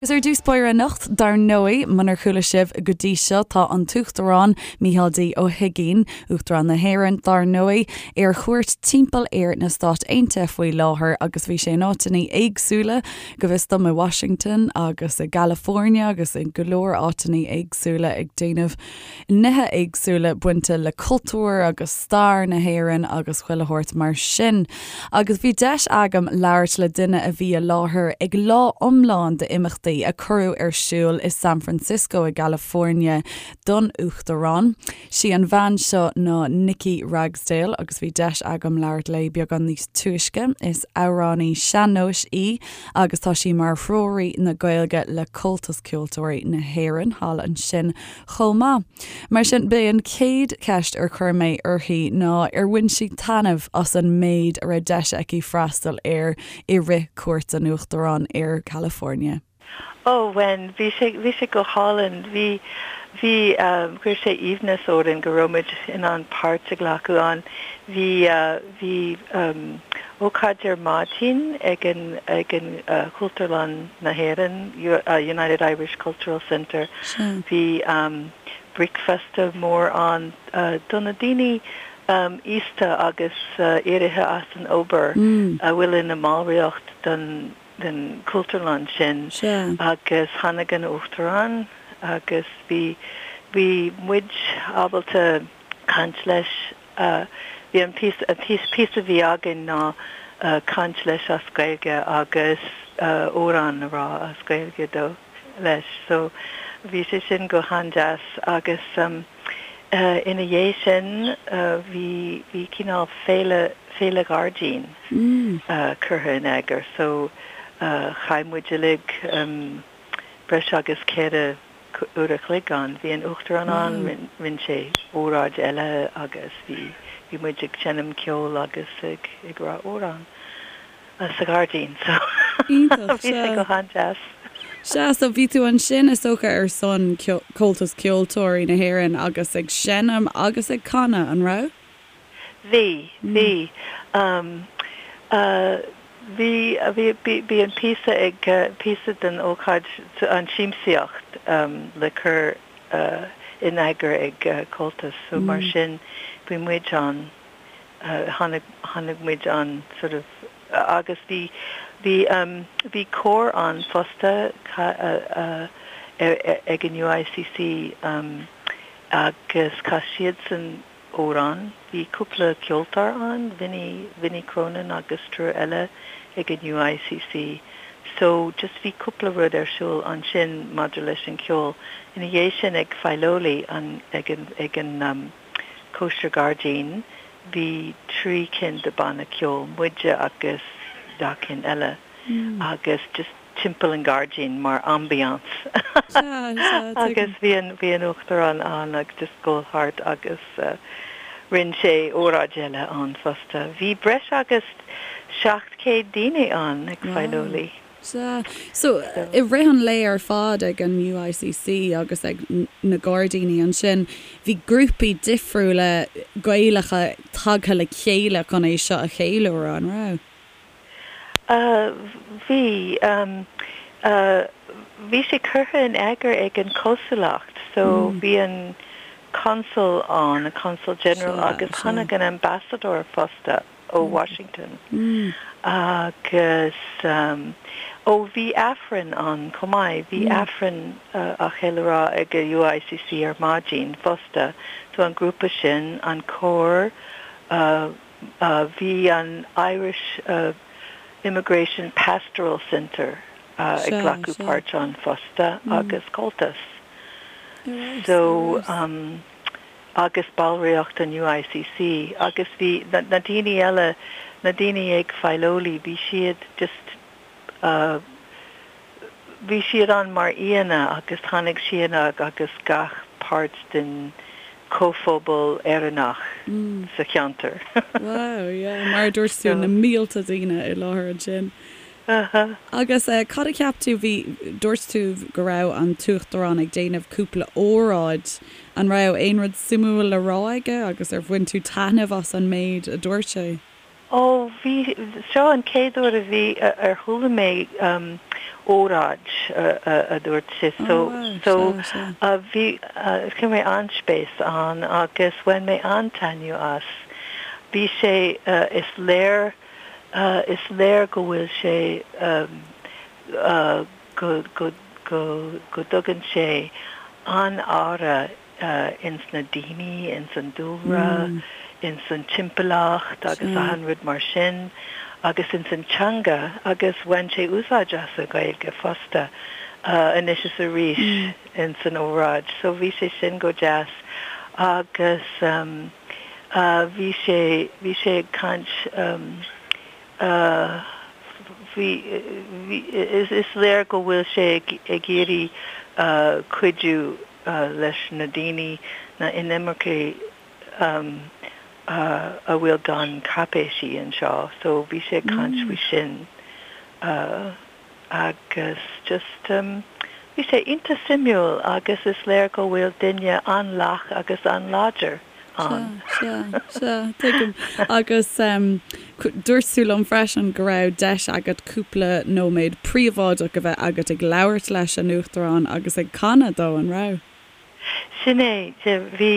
Agus ar dtús báire anocht, dar ndóigh, munar chuala sibh go dtí seo, tá an tUachtarán Micheál D. Ó hUigínn, Uachtarán na hÉireann, dar ndóigh, ar chuairt timpeall ar na Stáit Aontaithe faoi láthair agus bhí sé in áiteanna éagsúla, go bhfios dom, i Washington agus i gCalifornia agus i go leor áiteanna éagsúla ag déanamh nithe éagsúla bainte le cultúr agus stair na hÉireann agus chuile shórt mar sin. Agus bhí deis agam labhairt le duine a bhí i láthair ag lá iomlán d'imeachtaí a cuireadh ar siúl i San Francisco i gCalifornia don Uachtarán. Sí an bhean seo ná Nikki Ragsdale agus bhí deis agam labhairt léi beagán níos túisce. Is amhránaí sean-nóis í agus tá sí mar threoraí na Gaeilge le Comhaltas Ceoltóirí na hÉireann thall ansin chomh maith. Mar sin, b'é an chéad cheist ar chuir mé uirthi ná ar bhain sí taitneamh as an méid a raibh deis aici freastal air i rith cuairt an Uachtaráin ar California. Ó, bhain. Bhí sé, bhí sé go hálainn. Bhí, bhí, chuir sé aoibhneas orainn go raibh muid in ann páirt a ghlacadh ann. Bhí, bhí ócáid ar maidin ag an, ag an Chultúrlann na hÉireann, United Irish Cultural Centre. Bhí bricfeasta mór ann do na daoine aosta agus éirithe as an obair a bhfuil ina mballraíocht den den Chultúrlann sin agus tháinig an Uachtarán agus bhí bhí muid ábalta caint leis. Bhí an píosa an píosa a bhí againn ná caint leis as Gaeilge agus amhrán a rá as Gaeilge dó leis so bhí sé sin go han-deas agus ina dhiaidh sin bhí bhí cineál féile féile ghairdín curtha in eagar so chaith muid uilig breis agus 4 uair a chloig ann. Bhí an Uachtarán ann, rinne sé óráid eile agus bhí bhí muid ag seinm ceoil agus ag ag rá amhrán sa ghairdín so bhí sé go han-deas. Sea, so bhí tú ansin is dócha ar son Comhaltas Ceoltóirí na hÉireann agus ag seinm agus ag canadh, an raibh? Bhí, bhí. Bhí, bhí, bhí an píosa ag, píosa den ócáid, an siamsaíocht le cur in eagar ag Comhaltas so mar sin bhí muid ann, tháinig, tháinig muid ann sort of agus bhí, bhí, bhí cór ann fosta ag an UICC agus chas siadsan amhrán. Bhí cúpla ceoltóir ann, Vinny, Vinny Cronin agus triúr eile ag an UICC. So, just bhí cúpla rud ar siúl ansin maidir leis an cheol. Ina dhiaidh sin ag Filoli, an, ag an, ag an um cóisir gairdín, bhí 3 cinn de banna ceoil, muide agus 2 cinn eile agus just timpeall an ghairdín mar ambiance agus bhí an bhí an Uachtarán ann agus just dul thart agus rinne sé óráid eile ann fosta. Bhí breis agus 700 daoine ann ag Filoli. Sea. So, i rith an lae ar fad ag an UICC agus ag na gairdíní ansin, bhí grúpaí difriúla Gaelacha tagtha le chéile chun é seo a cheiliúradh, an raibh? Bhí. Bhí sé curtha in eagar ag an chonsúlacht so bhí an consul ann, an consul general agus tháinig an ambassador fosta ó Washington agus ó bhí Aifreann ann chomh maith, bhí Aifreann á cheiliúradh ag an UICC ar maidin fosta so an grúpa sin, an cór, Bhí an Irish Immigration Pastoral Centre ag glacadh páirt ann fosta agus Comhaltas. So, agus ballraíocht an UICC agus bhí na daoine eile, na daoine ag Filoli, bhí siad just, Bhí siad ann mar aíonna agus tháinig siad agus gach páirt den chomhphobal Éireannach sa cheantar. Wow, yeah, mar a dúirt tú, na mílte daoine i láthair ansin. Agus cad a cheap tú, bhí, dúirt tú go raibh an tUachtarán ag déanamh cúpla óráid, an raibh aon rud suimiúil le rá aige agus ar bhain tú taitneamh as an méid a dúirt sé? Ó, bhí, seo an chéad uair a bhí, ar chuala mé. óráid a dúirt sé so so bhí chuir mé an-spéis ann agus bhain mé an-taitneamh as. Bhí sé is léir is léir go bhfuil sé go go go go dtugann sé an-aire ins na daoine, ins an dúlra, ins an timpeallacht agus achan rud mar sin agus ins an teanga agus bhain sé úsáid as an Ghaeilge fosta anois is arís ins an óráid so bhí sé sin go deas agus bhí sé, bhí sé ag caint bhí, bhí, is léir go bhfuil sé ag iarraidh cuidiú leis na daoine, na inimircigh a bhfuil gan cáipéisí anseo so bhí sé ag caint faoi sin agus just bhí sé iontach suimiúil agus is léir go bhfuil duine an-lách agus an-láidir ann. Sea, sea, sea, tuigim. Agus dúirt tú liom freisin go raibh deis agat cúpla nóiméad príobháideach a bheith agat ag labhairt leis an Uachtarán agus ag canadh dó, an raibh? Sin é, bhí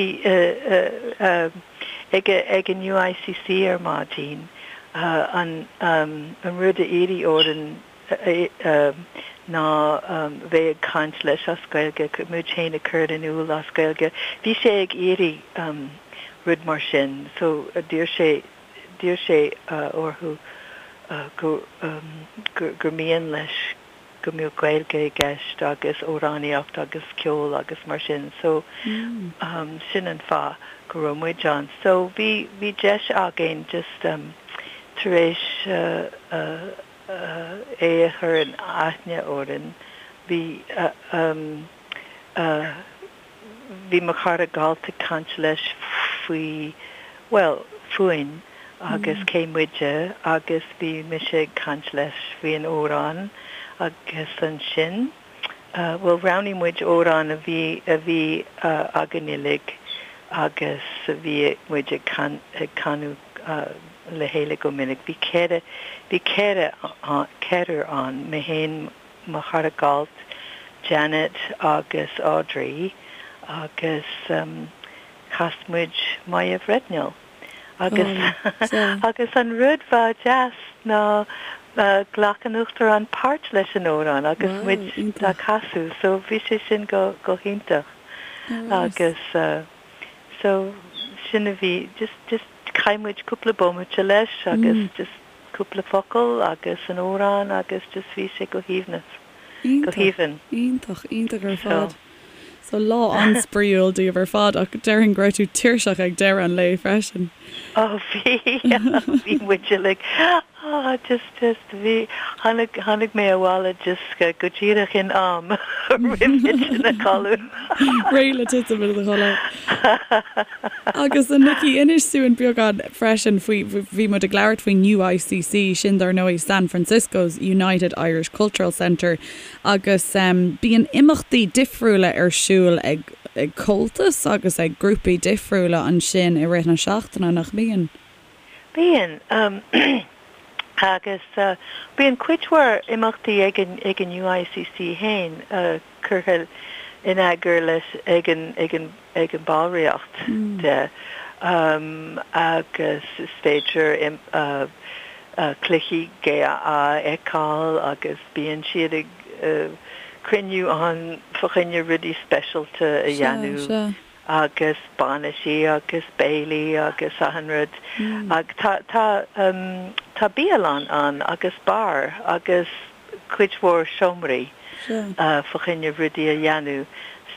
ag ag an UICC ar maidin an rud a iarradh orainn ná bheith ag caint leis as Gaeilge, muid féin a chur in iúl as Gaeilge. Bhí sé ag iarraidh rud mar sin so d'iarr sé, d'iarr sé orthu go, gur mian leis go mbeadh Gaeilge i gceist agus amhránaíocht agus ceol agus mar sin so sin an fáth go raibh muid ann. So bhí, bhí deis againn just tar éis é a chur in aithne orainn, bhí bhí mo chara Galt ag caint leis faoi, bhuel, fúinn agus cé muide agus bhí mise ag caint leis faoin amhrán agus ansin, bhuel, roghnaigh muid amhrán a bhí, a bhí againn uilig agus a bhí muid ag canadh le chéile go minic. Bhí ceithre, bhí ceithre, ceathrar ann, mé féin, mo chara Galt, Janet agus Audrey agus chas muid Moya Bhreatnail. Agus agus an rud ba deas ná ghlac an Uachtarán páirt leis an amhrán agus muid á casadh so bhí sé sin go go hiontach agus so sin a bhí just just chaith muid cúpla bomaite leis agus just cúpla focal agus an amhrán agus just bhí sé go haoibhneas, go haoibhinn. Iontach, iontach ar fad. So lá an-spraíúil daoibh ar fad ach déarfainn go raibh tú tuirseach ag deireadh an lae freisin. Oh bhí, bhí muid uilig, ah just, just bhí, tháinig, tháinig mé abhaile just go díreach in am roimh thitim a chodladh. Réidh le titim i do chodladh. Agus a Nikki, inis dúinn beagán freisin faoi, bhí muid ag labhairt faoin UICC, sin dar ndóigh San Francisco's United Irish Cultural Center, agus bíonn imeachtaí difriúla ar siúl ag ag Comhaltas agus ag grúpaí difriúla ansin i rith na seachtaine, nach mbíonn? Bíonn. Agus bíonn cuid mhór imeachtaí ag an ag an UICC féin, curtha in eagar leis ag an ag an ag an ballraíocht de agus is féidir cluichí GAA a fheiceáil agus bíonn siad ag cruinniú ann fá choinne rudaí speisialta a dhéanamh agus bainisí agus béilí agus achan rud. Ach tá tá tá bialann ann agus beár agus cuid mhór seomraí fá choinne rudaí a dhéanamh.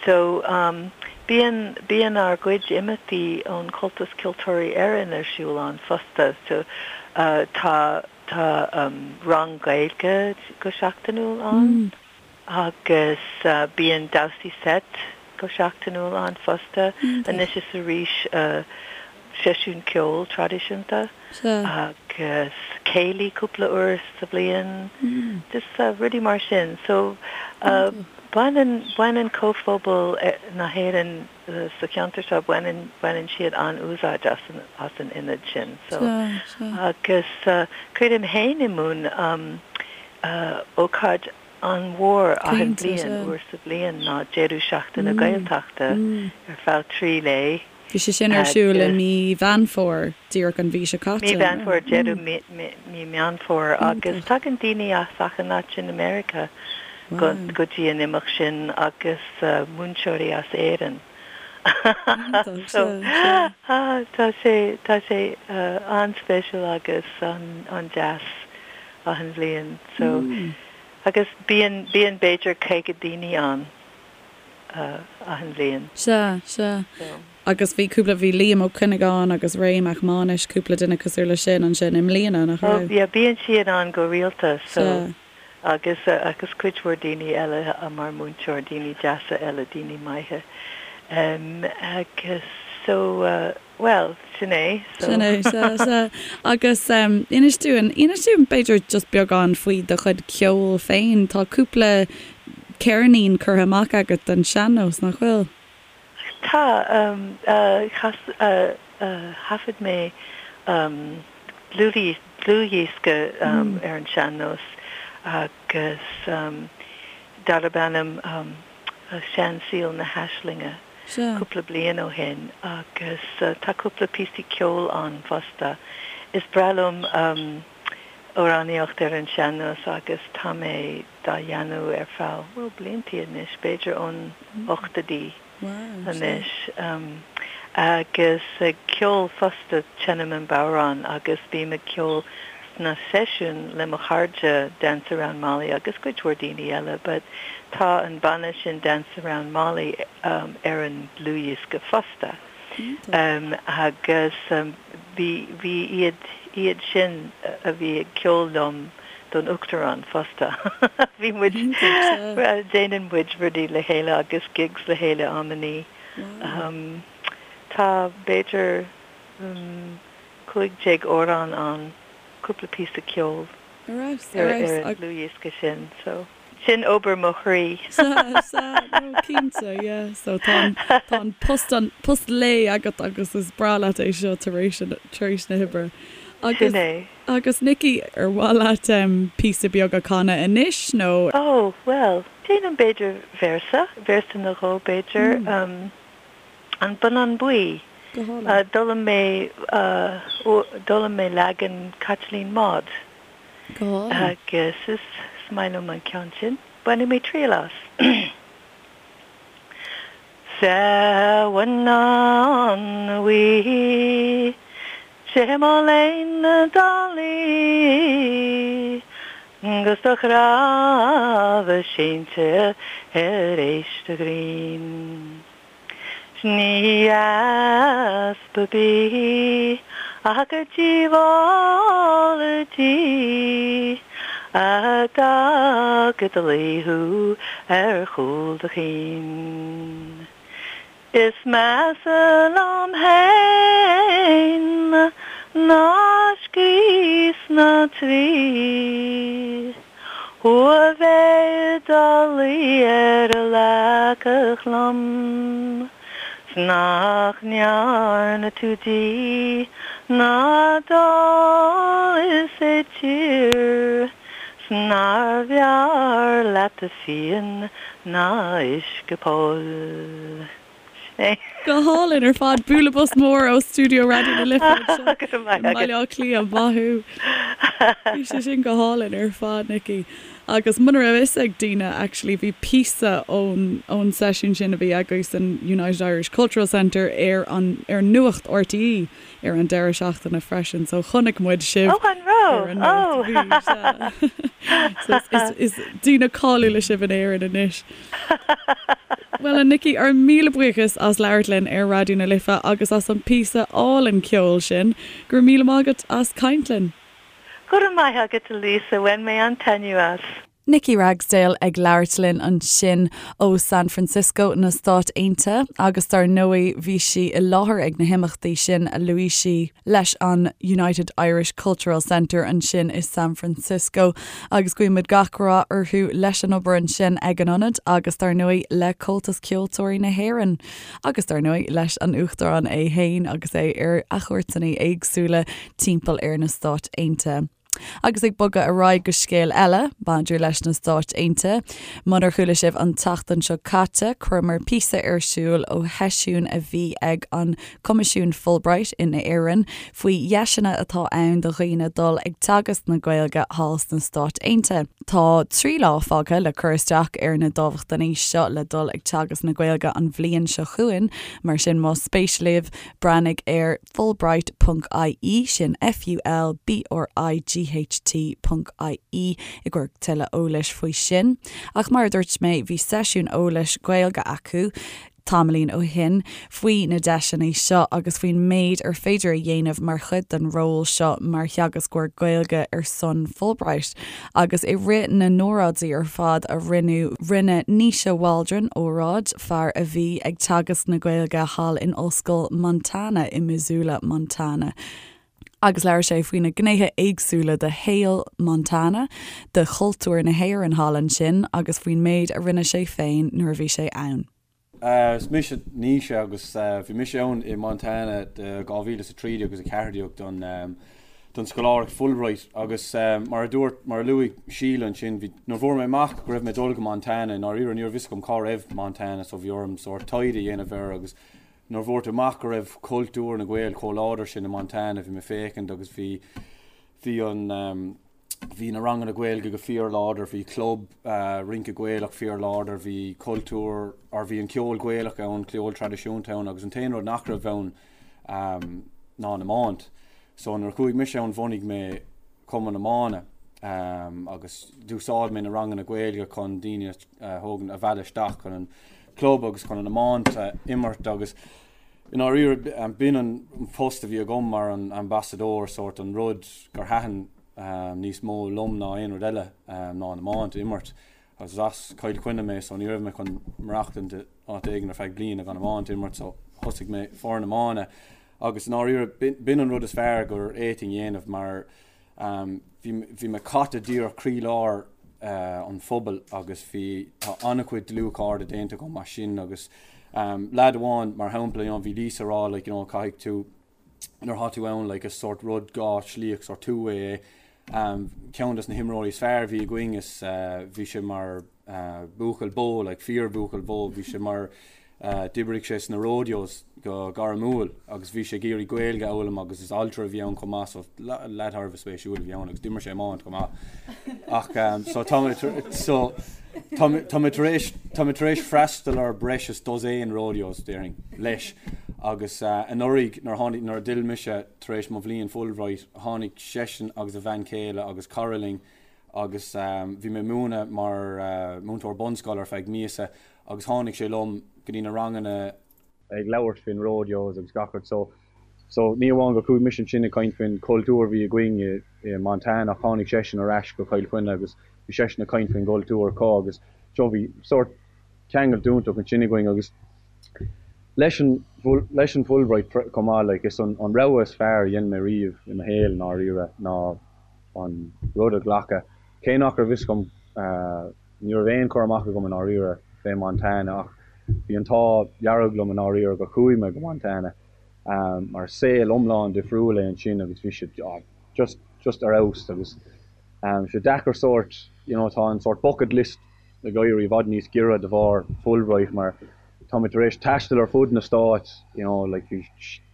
So, bíonn, bíonn ár gcuid imeachtaí ón Chomhaltas Ceoltóirí Éireann ar siúl ann fosta. So, tá, tá rang Gaeilge go seachtainiúil ann agus bíonn damhsaí seit go seachtainiúil ann fosta, anois is arís seisiún ceoil traidisiúnta agus céilí cúpla uair sa bhliain, just rudaí mar sin. So baineann, baineann comhphobal na hÉireann sa cheantar seo, baineann, baineann siad an-úsáid as an, as an ionad sin. So agus cuirim féin i mbun ócáid. an-mhór achan bhliain, uair sa bhliain, ná deireadh seachtaine Gaeltachta ar feadh 3 lae. Bhí sé sin ar siúl i mí Mheán Fómhair, díreach an mhí seo caite. Mí Mheán Fómhair, deireadh mí Meán Fómhair, agus tagann daoine as achan áit in America go dtí an imeacht sin agus múinteoirí as Éirinn. So tá sé, tá sé an-speisialta agus an-deas achan bhliain. So agus bíonn, bíonn b'fhéidir 50 daoine ann achan bhliain. Sea, sea. Agus bhí cúpla, bhí Liam Ó Cuinneagáin agus Ray Mac Mánais, cúpla duine cosúil leis sin ansin i mbliana, nach raibh? Oh yeah, bíonn siad ann go rialta so agus agus cuid mhór daoine eile mar múinteoir, daoine deasa eile, daoine maithe. Agus so bhuel, sin é so. Sin é, sea, sea. Agus inis dúinn, inis dúinn b'fhéidir just beagán faoi do chuid ceoil féin. Tá cúpla ceirnín curtha amach agat den sean-nós, nach bhfuil? Tá, chas, thaifead mé dlúthdhiosca ar an sean-nós agus darb ainm Seansaol na hAislinge cúpla bliain ó shin agus tá cúpla píosaí ceoil ann fosta. Is breá liom amhránaíocht ar an sean-nós agus tá mé dá dhéanamh ar feadh, bhuel, bliantaí anois, b'fhéidir ón ochtóidí anois. Agus ag ceol fosta, seinnim an bodhrán agus bím ag ceol sna seisiúin le mo chairde Dance Around Molly agus cuid mhór daoine eile but tá an banna sin Dance Around Molly ar an dlúthdhiosca fosta. Agus bhí, bhí iad, iad sin a bhí ag ceol liom don Uachtarán fosta. Bhí muid, déanann muid rudaí le chéile agus gigs le chéile amannaí. Tá b'fhéidir 15 amhrán ann, cúpla píosa ceoil ar an dlúthdhiosca sin so. Sin obair mo chroí. Sea, sea, no, cinnte, yeah. So tá an, tá an post, an post lae agat agus is breá leat é seo tar éis, tar éis na hoibre. Agus, Sin é. agus Nikki, ar mhaith leat em píosa beag a chanadh anois nó? Oh, bhuel, déanaim b'fhéidir véarsa, véarsa nó dhó b'fhéidir, em, An Bonnán Buí. Go hálainn. D'fhoghlaim mé, d'fhoghlaim mé leagan Chaitlín Maude. Go hálainn. Agus is maith liom an ceann sin. Bainfidh mé triail as. Sa bhonnán bhuí, 'sé mo léan dá luí, 'gus do chnámha seinnte ar éist a ghrinn. 'S ní easpa bídh ach gur díobháil di a d'fhág i do luí thú ar chúl do chinn. Is measa liom fhéin ná scríos na dtrí. Thú a bheith i do luí ar an leaca lom 's nach ndearna tú dí ná dul is i dtír 's nárbh fhearr leat do phian ná uisce poill. Go hálainn ar fad. Bualadh bos mór ó stiúideo Raidió na Life anseo i mBaile Átha Cliath. Maith thú. Bhí sé sin go hálainn ar fad, Nikki. Agus muna raibh fhios ag daoine, actually, bhí píosa ón ón seisiún sin a bhí agaibh san United Irish Cultural Centre ar an ar Nuacht RTÉ ar an deireadh seachtaine freisin. So chonaic muid sibh Oh, an raibh? ar an Nuacht. Bhí, sea. So is is daoine cáiliúla sibh in Éirinn anois. Bhuel, a Nikki, ár míle buíochas as labhairt linn ar Raidió na Life agus as an píosa álainn ceoil sin. Go raibh míle maith agat as caint linn. Go raibh maith agat, a Lisa, bhain mé an-taitneamh as. Nikki Ragsdale ag labhairt linn ansin ó San Francisco na Stát Aontaithe agus dar ndóigh bhí sí i láthair ag na himeachtaí sin a luaigh sí leis an United Irish Cultural Centre ansin i San Francisco. Agus guímid gach rath orthu leis an obair ansin ag an ionad agus dar ndóigh le Comhaltas Ceoltóirí na hÉireann. Agus dar ndóigh leis an Uachtarán é fhéin agus é ar a chuairteanna éagsúla timpeall ar na Stáit Aontaithe. Agus ag bogadh ar aghaidh go scéal eile, maidir leis na Stáit Aontaithe. Munar chuala sibh an tseachtain seo caite, chuireamar píosa ar siúl ó sheisiún a bhí ag an Coimisiún Fulbright in Éirinn faoi dheiseanna atá ann do dhaoine dul ag teagasc na Gaeilge thall sna Stáit Aontaithe. Tá 3 lá fágtha le cur isteach ar na dámhachtainí seo le dul ag teagasc na Gaeilge an bhliain seo chugainn, mar sin más spéis libh, breathnaigh ar fulbright ponc ie, sin F-U-L-B-R-I-G-H-T ponc I-E, i gcomhair tuilleadh eolais faoi sin. Ach mar a dúirt mé, bhí seisiún eolais Gaeilge acu tamaillín ó shin faoi na deiseanna seo agus faoin méid ar féidir a dhéanamh mar chuid den ról seo mar theagascóir Gaeilge ar son Fulbright. Agus i rith na n-óráidí ar fad a rinneadh, rinne Naoise Waldron óráid, fear a bhí ag teagasc na Gaeilge thall in Ollscoil Montana i Missoula, Montana. Agus labhair sé faoi na gnéithe éagsúla de shaol Montana, de chultúr na hÉireann thall ansin agus faoin méid a rinne sé féin nuair a bhí sé ann. Is mise Naoise agus bhí mise ann i Montana do 2013 agus 14 don don scoláireacht Fulbright agus mar a dúirt, mar a luaigh Síle ansin, bhí, nuair a fuair mé amach go raibh mé ag dul go Montana, i ndáiríre ní raibh fhios agam cá raibh Montana so bhí orm sórt taighde a dhéanamh air agus nuair a fuair tú amach go raibh cultúr na Gael chomh láidir sin i Montana bhí mé ag féachaint agus bhí, bhí an. bhí na ranganna Gaeilge go fíorláidir, bhí club rince Gaelach fíorláidir, bhí cultúr, or bhí an ceol Gaelach ann, ceol traidisiúnta ann agus an t-aon rud nach raibh ann ná an iomáint. So nuair a chuaigh mise ann bhunaigh mé cumann iomána agus d'úsáid mé na ranganna Gaeilge chun daoine a thógaint, a mhealladh isteach chun an club agus chun an iomáint a imirt agus i ndáiríre b'in an post a bhí agam mar an ambasadóir, sórt an rud gur thaitin níos mó liom ná aon rud eile ná an iomáint a imirt. Agus is as Cill Chainnigh mé so ní raibh mé chun maireachtaint in áit éigin ar feadh bliana gan iomáint a imirt so thosaigh mé foireann iomána agus i ndáiríre b'in an rud is fearr gur fhéadfainn a dhéanamh mar bhí bhí mé caite díreach croílár an phobail agus bhí tá an-chuid dlúthchairde déanta agam as sin agus leaid amháin mar shampla you know bhí Lisa ag rá like you know caithfidh tú nuair atá tú ann like is sórt rud dhá shlíoch sórt two way é. Ceann des na himreoirí is fearr a bhí againn is bhí sé mar buachaill bó like fíor bhuachaill bó bhí sé mar d'oibrigh sé sna rodeos go gairmiúil agus bhí sé ag iarraidh Gaeilge a fhoghlaim agus is altra a bhí ann chomh maith so leaid thar a bheith spéisiúil a bhí ann agus d'imir sé iomáint chomh maith ach so tá mé so tá mé tar éis tá mé tar éis freastal ar breis is dosaen rodeos déarfainn leis Agus anuraidh nuair a tháinig, nuair a d'fhill mise tar éis mo bhliain Fulbright, tháinig seisean agus a bhean chéile agus cara linn agus bhí mé ag múineadh mar mhúinteoir bunscoile ar feadh míosa agus tháinig sé liom go dtí na ranganna ag labhairt faoin rodeos agus gach rud so so ní amháin gur chuaigh mise ansin ag caint faoin chultúr a bhí againn i i Montana ach tháinig seisean ar ais go Cill Chainnigh agus bhí seisean ag caint faoin gcultúr acu agus so bhí sórt ceangal iontach ansin againn agus Leis an leis an Fulbright chomh maith, like, is an an rogha is fearr a dhein mé riamh i mo shaol i ndáiríre ná an rud a ghlacadh. Cé nach raibh fhios agam, ní raibh aon chur amach agam i ndáiríre fé Montana ach bhí an t-ádh dearg liom i ndáiríre gur chuaigh mé go Montana mar saol iomlán difriúil é ansin agus bhí sé just just ar fheabhas agus sé deacair sórt you know tá an sórt bucket list ag éirí i bhfad níos giorra de bharr Fulbright mar tá mé tar éis taisteal ar fud na Stáit you know like bhí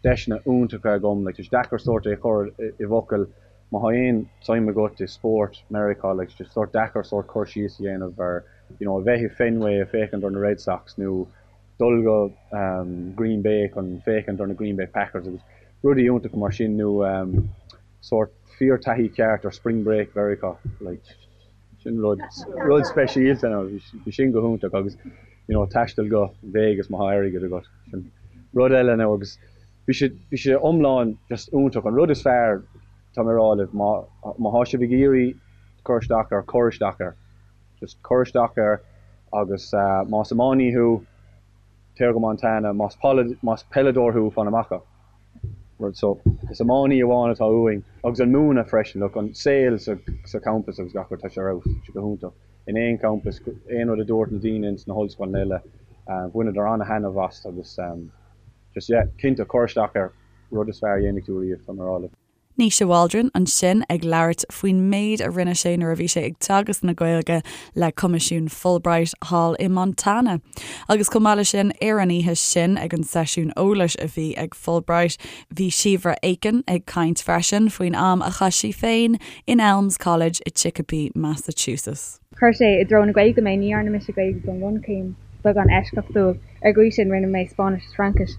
deiseanna iontacha agam like tá sé deacair sórt é a chur i bhfocail má thá aon tsuim agat i spórt Meiriceá like tá sé sórt deacair sórt cur síos a dhéanamh ar you know a bheith i Fenway ag féachaint ar na Red Sox nó dul go Green Bay chun féachaint ar na Green Bay Packers agus rudaí iontacha mar sin nó sórt fíor taithí ceart ar Spring Break Mheiriceá like Sin rud, rud speisialta now, bhí sin go hiontach agus you know taisteal go Vegas má thá airgead agat, sin rud eile now agus bhí sé, bhí sé iomlán just iontach. An rud is fearr, tá mé ag rá libh, má, má thá sibh ag iarraidh cur isteach air, cuir isteach air. Just cuir isteach air agus más iománaí thú, téir go Montana, más más peileadóir thú, fan amach. Rud so, is iománaí amháin atá uainn agus an múineadh freisin, look, an saol sa sa champas agus gach rud, tá sé ar fheabhas, tá sé go hiontach. In aon champas, aon rud a dúirt na daoine ins na hollscoileanna eile, bhaineadar an-thaitneamh as agus just yeah, cinnte, cuir isteach air, rud is fearr a dhéanfaidh tú riamh, tá mé ag rá libh. Naoise Waldron ansin ag labhairt faoin méid a rinne sé nuair a bhí sé ag teagasc na Gaeilge le Coimisiún Fulbright thall i Montana. Agus chomh maith leis sin, ar an oíche sin ag an seisiún eolais a bhí ag Fulbright, bhí Síobhra Aiken ag caint freisin faoin am a chaith sí féin in Elms College i Chicopee, Massachusetts. Chuir sé i dtreo na Gaeilge mé. Ní dhearna mise Gaeilge don bhunchéim, beagán eisceachtúil. Ar an gcaoi sin, rinne mé Spáinnis is Fraincis.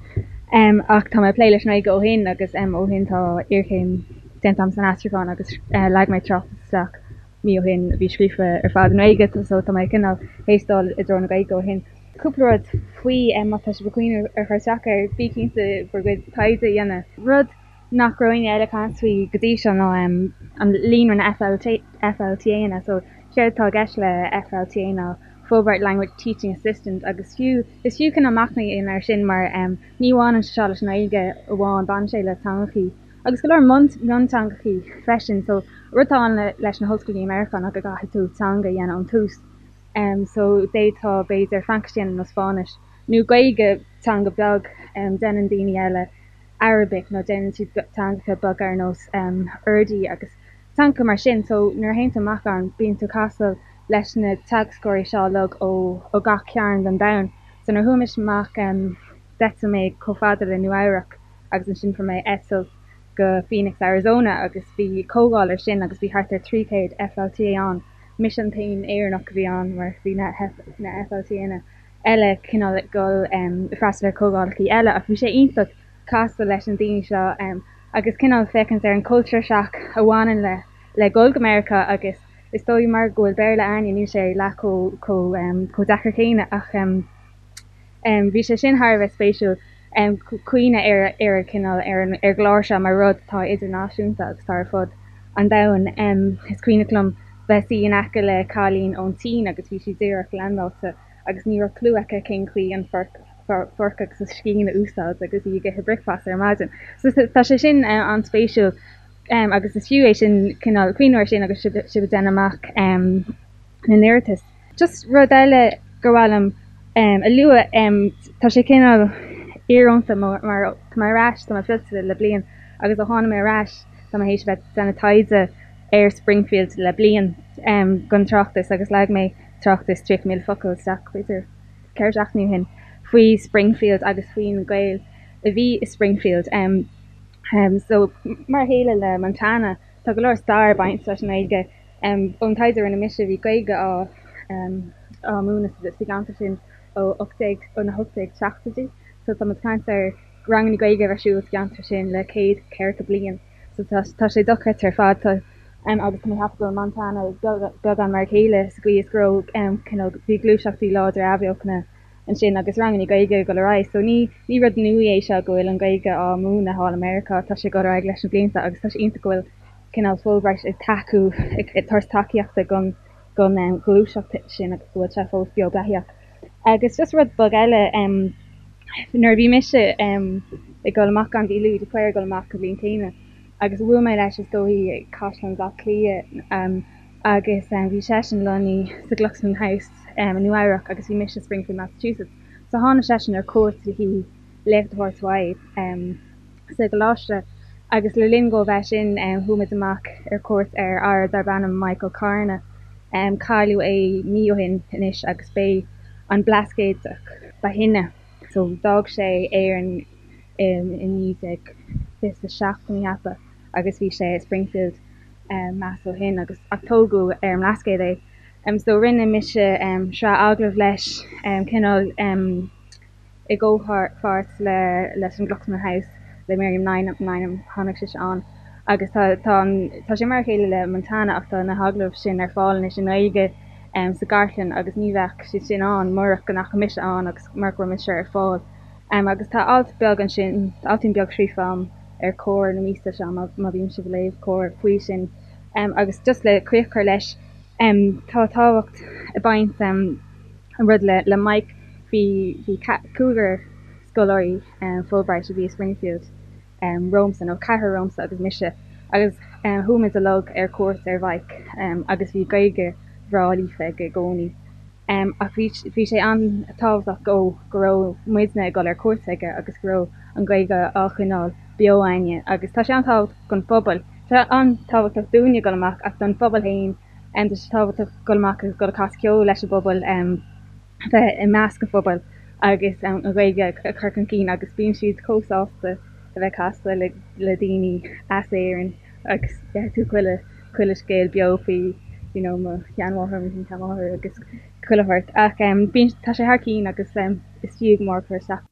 Ach tá mé ag plé leis an nGaeilge ó shin agus ó shin tá iarchéim déanta agam san aistriúchán agus leag mé tráchtas isteach mí ó shin a bhí scríofa ar fad i nGaeilge so tá mé cineál théis dul i dtreo na Gaeilge ó shin. Cúpla rud faoi má tá sibh ag cuimhneamh ar chur isteach air, bí cinnte bhur gcuid taighde a dhéanamh. Rud nach raibh éinne eile ag caint faoi go dtí seo ná an líonra na FLTAnna. So séard atá i gceist le FLTA ná Fulbright Language Teaching Assistant agus fiú, is fiú cineál machnamh a dhéanamh air sin mar ní bhaineann sé seo leis an nGaeilge amháin, baineann sé le teangachaí agus go leor mionteangachaí freisin. So rud atá ann leis na hollscoileanna i Meiriceá ná go gcaithfidh tú teanga a dhéanamh ón tús. So d'fhéadfá b'fhéidir Fraincis a dhéanamh nó Spáinnis nó Gaeilge, teanga beag, déanann daoine eile Arabic nó déanann siad teangacha beaga ar nós Urdu agus teangacha mar sin. So nuair a théann tú amach ann bíonn tú ag casadh leis na teagascóirí seo uilig ó ó gach cearn den domhan. So nuair a chuaigh mise amach d'eitil mé chomh fada le Nua Eabhrac agus ansin fuair mé eitilt go Phoenix, Arizona agus bhí comhdháil ar sin agus bhí thart ar 300 FLTA ann. Mise an t-aon Éireannach a bhí ann mar bhí na na FLTAnna eile cineál ag dul ag freastal ar comhdhálacha eile ach bhí sé iontach casadh leis na daoine seo agus cineál féachaint ar an culture shock a bhaineann le le dhul go Meiriceá agus is dóigh mar go bhfuil Béarla a'ainne níl sé leath chomh chomh chomh deacair céanna ach bhí sé sin thar a bheith spéisiúil cuimhneamh ar ar an cineál ar an ar an gclár seo mar rud atá idirnáisiúnta agus atá ar fud an domhain. Is cuimhneach liom bheith suí in aice le cailín ón tSín agus bhí sí díreach leaindeáilte agus ní raibh clue aici cén chaoi an forc fork agus an scian a úsáid agus í ag ithe bricfeasta ar maidin. So tá sé sin an-spéisiúil agus is fiú é sin cineál cuimhneamh air sin agus sibh sibh ag déanamh amach na n-iarratas. Just rud eile gur mhaith liom a lua, tá sé cineál íorónta mar tá mé ar ais, tá mé fillte le bliain agus ó tháinig mé ar ais tá mé théis a bheith ag déanamh taighde ar Springfield le bliain don tráchtas agus leag mé tráchtas 30,000 focal isteach b'fhéidir 4 seachtainí ó shin faoi Springfield agus faoi na Gaeil a bhí i Springfield. So mar a chéile le Montana tá go leor stair ag baint leis an nGaeilge. Ón taighde a rinne mise bhí Gaeilge á á múineadh sa gceantar sin ó 18 ó na 1870idí. So tá muid ag caint ar ranganna Gaeilge a bheith ar siúl sa gceantar sin le céad ceathracha bliain. So tá tá sé dochreidte ar fad. Tá agus tá mé ag ceapadh go bhfuil Montana beagán mar a chéile sa gcaoi is go raibh cineál bhí gluaiseachtaí láidre athbheochana ansin agus ranganna Gaeilge ag dul ar aghaidh. So ní ní rud nua é seo go bhfuil an Ghaeilge á múineadh thall i Meiriceá, tá sé ag dul ar aghaidh leis na blianta agus tá sé iontach go bhfuil cineál Fulbright ag tacú ag tabhairt tacaíochta don don ghluaiseacht sin agus go bhfuil sé fós beo beathaíoch. Agus just rud beag eile, nuair a bhí mise ag dul amach ann, bhí Louis de Paor ag dul amach an bhliain chéanna agus bhuail mé leis is dóigh i Caisleán Bhaile Átha Cliath agus bhí seisean lonnaithe sa Glucksman House i Nua Eabhrac agus bhí mise i Springfield, Massachusetts. So tháinig seisean ar cuairt le haghaidh léacht a thabhairt uaidh. sa gcoláiste agus le linn dhó bheith sin chuaigh muid amach ar cuairt ar fhear darb ainm Michael Carna. Cailleadh é mí ó shin anois agus b'é an Blascaodach ba shine. So d'fhág sé Éirinn i 1927 tá mé ag ceapadh agus bhí sé i Springfield Mass ó shin agus ach tógadh ar an mBlascaod é. So rinne mise sraith agallamh leis cineál i gcomhpháirt leis an Glucksman House le Miriam Lynam, tháinig sise ann agus tá tá tá sé mar a chéile le Montana ach tá na hagallaimh sin ar fáil anois i nGaeilge sa gcartlann agus ní bheadh siad sin ann murach go ndeachaigh mise ann agus murach go raibh mise ar fáil. Agus tá alt beag ansin, altín beag scríofa agam ar Comhar na míosa seo má má bhíonn sibh ag léamh Comhar faoi sin. Agus just le críoch a chur leis, tá tábhacht ag baint an rud le le Mike bhí bhí cúigear scoláirí Fulbright a bhí i Springfield romhamsa nó ceathrar romhamsa agus mise agus chuaigh muid uilig ar cuairt ar Mhike agus bhí Gaeilge bhreá líofa aige i gcónaí. Ach bhí bhí sé an-tábhachtach dó go raibh muidne ag dul ar cuairt aige agus go raibh an Ghaeilge á choinneáil. beo againne agus tá sé an-tábhachtach don phobal. Tá sé an-tábhachtach dúinne dul amach ach don phobal féin tá sé tábhachtach dul amach agus dul ag casadh ceoil leis an bpobal, bheith i measc an phobail agus an Ghaeilge a chur chun cinn agus bíonn siad chomh sásta a bheith ag casadh le daoine as Éirinn agus gheobhaidh tú chuile chuile scéal beo faoi you know mo sheanmháthair, mo shin-sheanmháthair agus chuile shórt ach bíonn tá sé thar cinn agus is fiú go mór cur isteach.